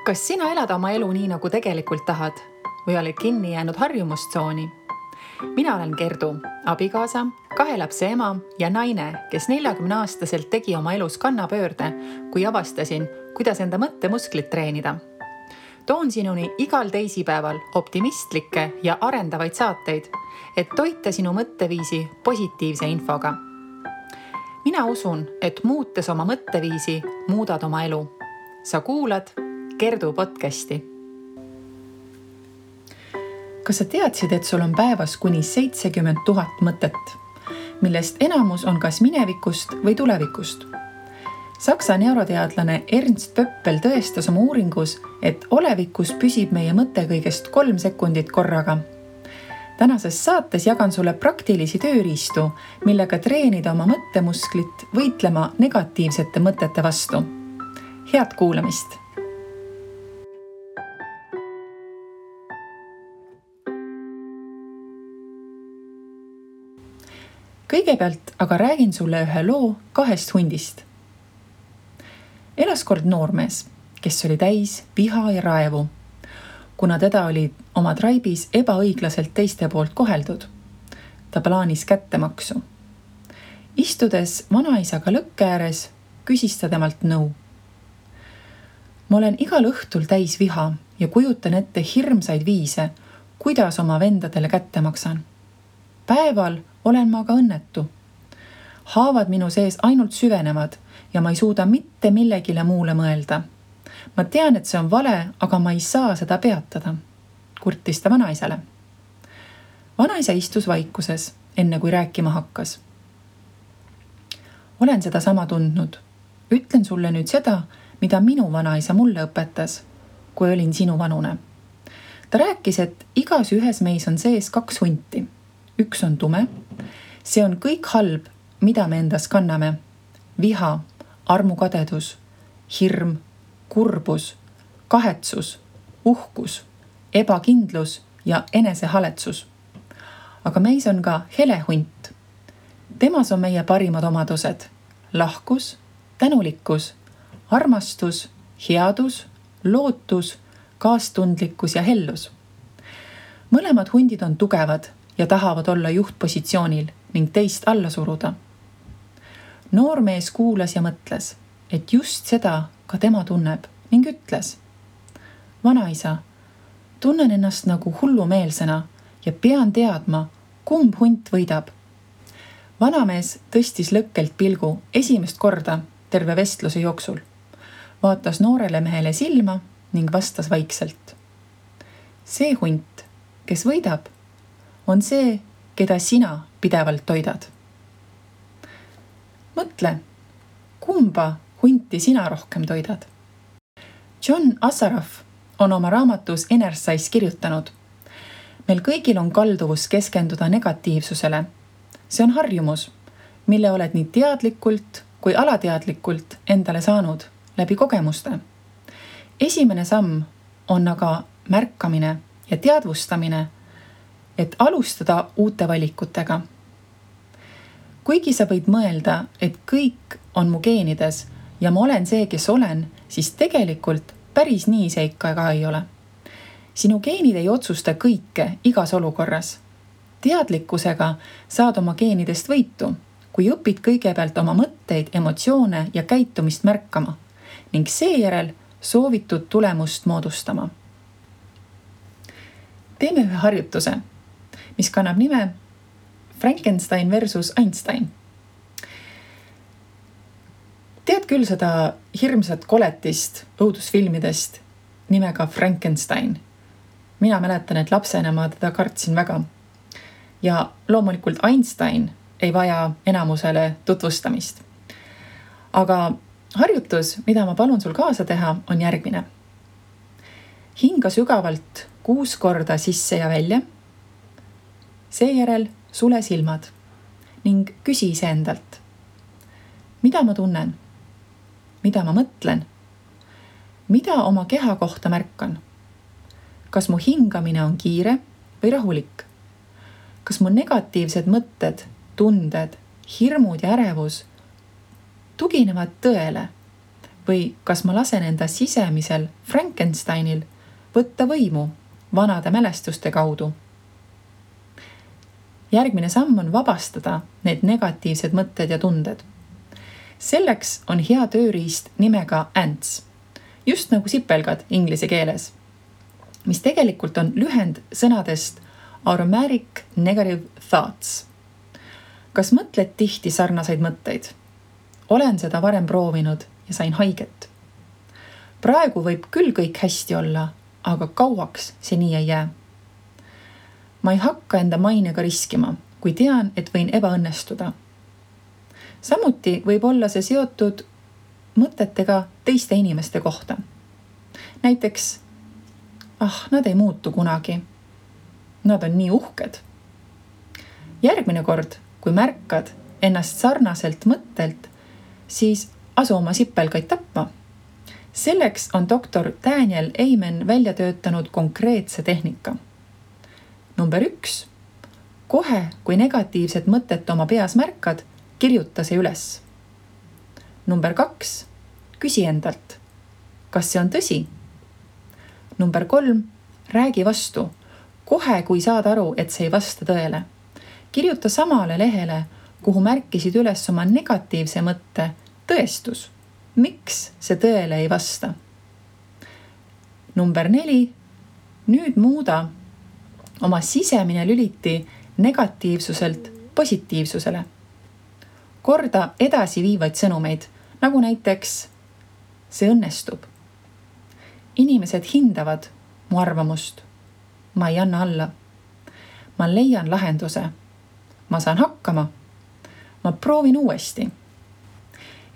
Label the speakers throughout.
Speaker 1: Kas sina elad oma elu nii, nagu tegelikult tahad või oled kinni jäänud harjumustsooni? Mina olen Gerdu, abikaasa, 2 lapse ema ja naine, kes 40-aastaselt tegi oma elus kannapöörde, kui avastasin, kuidas enda mõttemusklit treenida. Toon sinuni igal teisipäeval optimistlikke ja arendavaid saateid, et toita sinu mõtteviisi positiivse infoga. Mina usun, et muutes oma mõtteviisi, muudad oma elu. Sa kuulad Gerdu podcasti. Kas sa teadsid, et sul on päevas kuni 70 000 mõtet, millest enamus on kas minevikust või tulevikust? Saksa neuroteadlane Ernst Pöppel tõestas oma uuringus, et olevikus püsib meie mõte kõigest 3 sekundit korraga. Tänases saates jagan sulle praktilisi tööriistu, millega treenida oma mõttemusklit võitlema negatiivsete mõtete vastu. Head kuulamist! Kõigepealt aga räägin sulle ühe loo 2 hundist. Elas kord noormees, kes oli täis viha ja raevu, kuna teda oli oma traibis ebaõiglaselt teiste poolt koheldud. Ta plaanis kättemaksu. Istudes vanaisaga lõkke ääres, küsis ta temalt nõu. Ma olen igal õhtul täis viha ja kujutan ette hirmsaid viise, kuidas oma vendadele kätte maksan. Päeval olen ma aga õnnetu. Haavad minu sees ainult süvenevad ja ma ei suuda mitte millegile muule mõelda. Ma tean, et see on vale, aga ma ei saa seda peatada, kurtis ta vanaisale. Vanaisa istus vaikuses, enne kui rääkima hakkas. Olen seda sama tundnud. Ütlen sulle nüüd seda, mida minu vanaisa mulle õpetas, kui olin sinu vanune. Ta rääkis, et igas ühes meis on sees 2 hunti. Üks on tume, see on kõik halb, mida me endas kanname. Viha, armukadedus, hirm, kurbus, kahetsus, uhkus, ebakindlus ja enesehaletsus. Aga meis on ka hele hunt. Temas on meie parimad omadused. Lahkus, tänulikkus, armastus, headus, lootus, kaastundlikkus ja hellus. Mõlemad hundid on tugevad ja tahavad olla juhtpositsioonil ning teist alla suruda. Noormees kuulas ja mõtles, et just seda ka tema tunneb ning ütles. Vanaisa, tunnen ennast nagu hullumeelsena ja pean teadma, kumb hunt võidab. Vanamees tõstis lõkkelt pilgu esimest korda terve vestluse jooksul. Vaatas noorele mehele silma ning vastas vaikselt. See hunt, kes võidab, on see, keda sina pidevalt toidad. Mõtle, kumba hunti sina rohkem toidad? John Assaraf on oma raamatus Inner-Size kirjutanud. Meil kõigil on kalduvus keskenduda negatiivsusele. See on harjumus, mille oled nii teadlikult kui alateadlikult endale saanud läbi kogemuste. Esimene samm on aga märkamine ja teadvustamine, et alustada uute valikutega. Kuigi sa võid mõelda, et kõik on mu geenides ja ma olen see, kes olen, siis tegelikult päris nii see ikka ka ei ole. Sinu geenid ei otsusta kõike igas olukorras. Teadlikkusega saad oma geenidest võitu, kui õpid kõigepealt oma mõtteid, emotsioone ja käitumist märkama ning seejärel soovitud tulemust moodustama. Teeme ühe harjutuse, mis kannab nime Frankenstein versus Einstein. Tead küll seda hirmsat koletist õudusfilmidest nimega Frankenstein. Mina mäletan, et lapsena ma teda kartsin väga. Ja loomulikult Einstein ei vaja enamusele tutvustamist. Aga harjutus, mida ma palun sul kaasa teha, on järgmine. Hinga sügavalt 6 korda sisse ja välja. Seejärel sule silmad ning küsi iseendalt. Mida ma tunnen? Mida ma mõtlen? Mida oma keha kohta märkan? Kas mu hingamine on kiire või rahulik? Kas mu negatiivsed mõtted, tunded, hirmud ja ärevus tuginevad tõele või kas ma lasen enda sisemisel Frankensteinil võtta võimu vanade mälestuste kaudu. Järgmine samm on vabastada need negatiivsed mõtted ja tunded. Selleks on hea tööriist nimega ANTS, just nagu sipelgad inglise keeles, mis tegelikult on lühend sõnadest Automatic Negative Thoughts. Kas mõtled tihti sarnaseid mõtteid? Olen seda varem proovinud ja sain haiget. Praegu võib küll kõik hästi olla, aga kauaks see nii ei jää. Ma ei hakka enda mainega riskima, kui tean, et võin ebaõnnestuda. Samuti võib olla see seotud mõtetega teiste inimeste kohta. Näiteks, nad ei muutu kunagi. Nad on nii uhked. Järgmine kord, kui märkad ennast sarnaselt mõttelt, siis asu oma sipelgaid tapma. Selleks on doktor Daniel Amen välja töötanud konkreetse tehnika. Number 1. Kohe, kui negatiivset mõtet oma peas märkad, kirjuta see üles. Number 2. Küsi endalt, kas see on tõsi? Number 3. Räägi vastu, kohe kui saad aru, et see ei vasta tõele. Kirjuta samale lehele, kuhu märkisid üles oma negatiivse mõtte tõestus. Miks see tõele ei vasta? Number 4. Nüüd muuda oma sisemine lüliti negatiivsuselt positiivsusele. Korda edasiviivaid sõnumeid, nagu näiteks see õnnestub. Inimesed hindavad mu arvamust. Ma ei anna alla. Ma leian lahenduse. Ma saan hakkama. Ma proovin uuesti.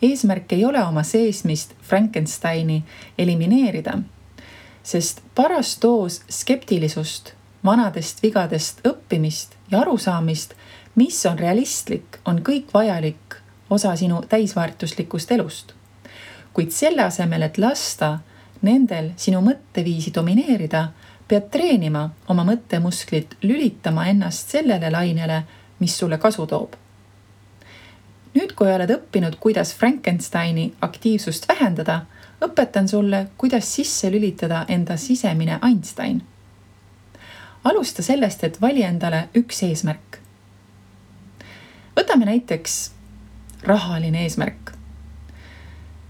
Speaker 1: Eesmärk ei ole oma seesmist Frankensteini elimineerida, sest paras doos skeptilisust, vanadest vigadest õppimist ja arusaamist, mis on realistlik, on kõik vajalik osa sinu täisväärtuslikust elust. Kuid selle asemel, et lasta nendel sinu mõtteviisi domineerida, pead treenima oma mõttemusklit lülitama ennast sellele lainele, mis sulle kasu toob. Nüüd, kui oled õppinud, kuidas Frankensteini aktiivsust vähendada, õpetan sulle, kuidas sisse lülitada enda sisemine Einstein. Alusta sellest, et vali endale üks eesmärk. Võtame näiteks rahaline eesmärk.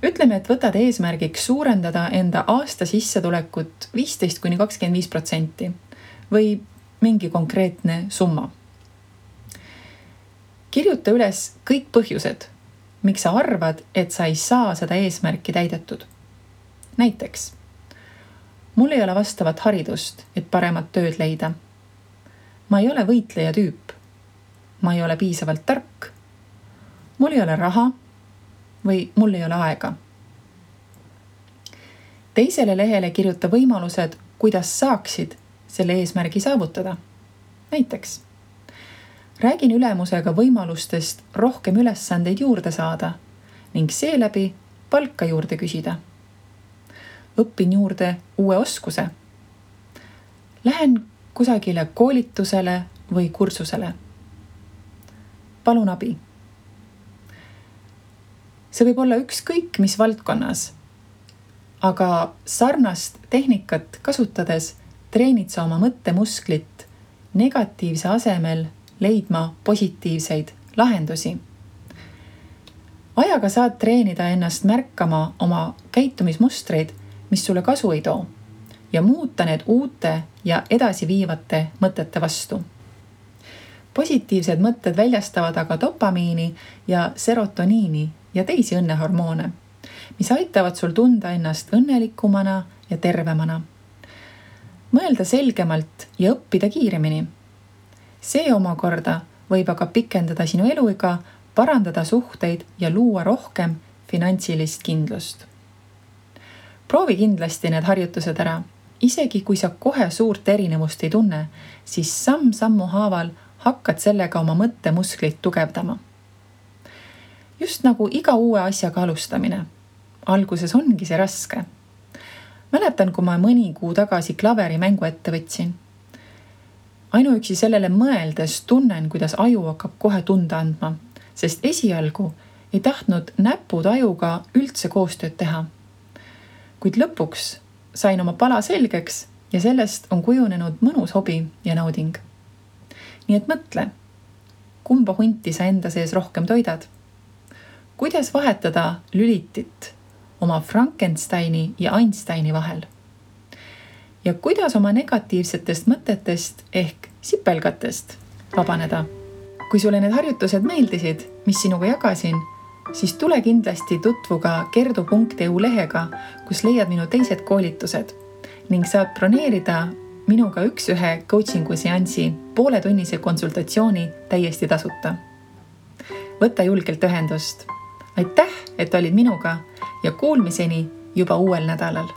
Speaker 1: Ütleme, et võtad eesmärgiks suurendada enda aasta sissetulekut 15–25% või mingi konkreetne summa. Kirjuta üles kõik põhjused, miks sa arvad, et sa ei saa seda eesmärki täidetud. Näiteks, mul ei ole vastavat haridust, et paremat tööd leida. Ma ei ole võitleja tüüp. Ma ei ole piisavalt tark. Mul ei ole raha või mul ei ole aega. Teisele lehele kirjuta võimalused, kuidas saaksid selle eesmärgi saavutada. Näiteks, räägin ülemusega võimalustest rohkem ülesandeid juurde saada ning seeläbi palka juurde küsida. Õpin juurde uue oskuse. Lähen kusagile koolitusele või kursusele. Palun abi. See võib olla ükskõik mis valdkonnas, aga sarnast tehnikat kasutades treenid sa oma mõttemusklit negatiivse asemel leidma positiivseid lahendusi. Ajaga saad treenida ennast märkama oma käitumismustreid, mis sulle kasu ei too, ja muuta need uute ja edasiviivate mõtete vastu. Positiivsed mõtted väljastavad aga dopamiini ja serotoniini ja teisi õnnehormoone, mis aitavad sul tunda ennast õnnelikumana ja tervemana. Mõelda selgemalt ja õppida kiiremini. See omakorda võib aga pikendada sinu eluiga, parandada suhteid ja luua rohkem finantsilist kindlust. Proovi kindlasti need harjutused ära. Isegi kui sa kohe suurt erinevust ei tunne, siis samm-sammu haaval hakkad sellega oma mõttemusklit tugevdama. Just nagu iga uue asjaga alustamine. Alguses ongi see raske. Mäletan, kui ma mõni kuu tagasi klaveri mängu ette võtsin. Ainuüksi sellele mõeldes tunnen, kuidas aju hakkab kohe tunda andma, sest esialgu ei tahtnud näputajuga üldse koostööd teha. Kuid lõpuks sain oma pala selgeks ja sellest on kujunenud mõnus hobi ja nauding. Nii et mõtle, kumba hunti sa enda sees rohkem toidad? Kuidas vahetada lülitit oma Frankensteini ja Einsteini vahel? Ja kuidas oma negatiivsetest mõtetest ehk sipelgatest vabaneda? Kui sulle need harjutused meeldisid, mis sinuga jagasin, siis tule kindlasti tutvu ka kerdu.eu lehega, kus leiad minu teised koolitused ning saad broneerida minuga 1-1 coachingu seansi pooletunnise konsultatsiooni täiesti tasuta. Võta julgelt ühendust. Aitäh, et olid minuga ja kuulmiseni juba uuel nädalal.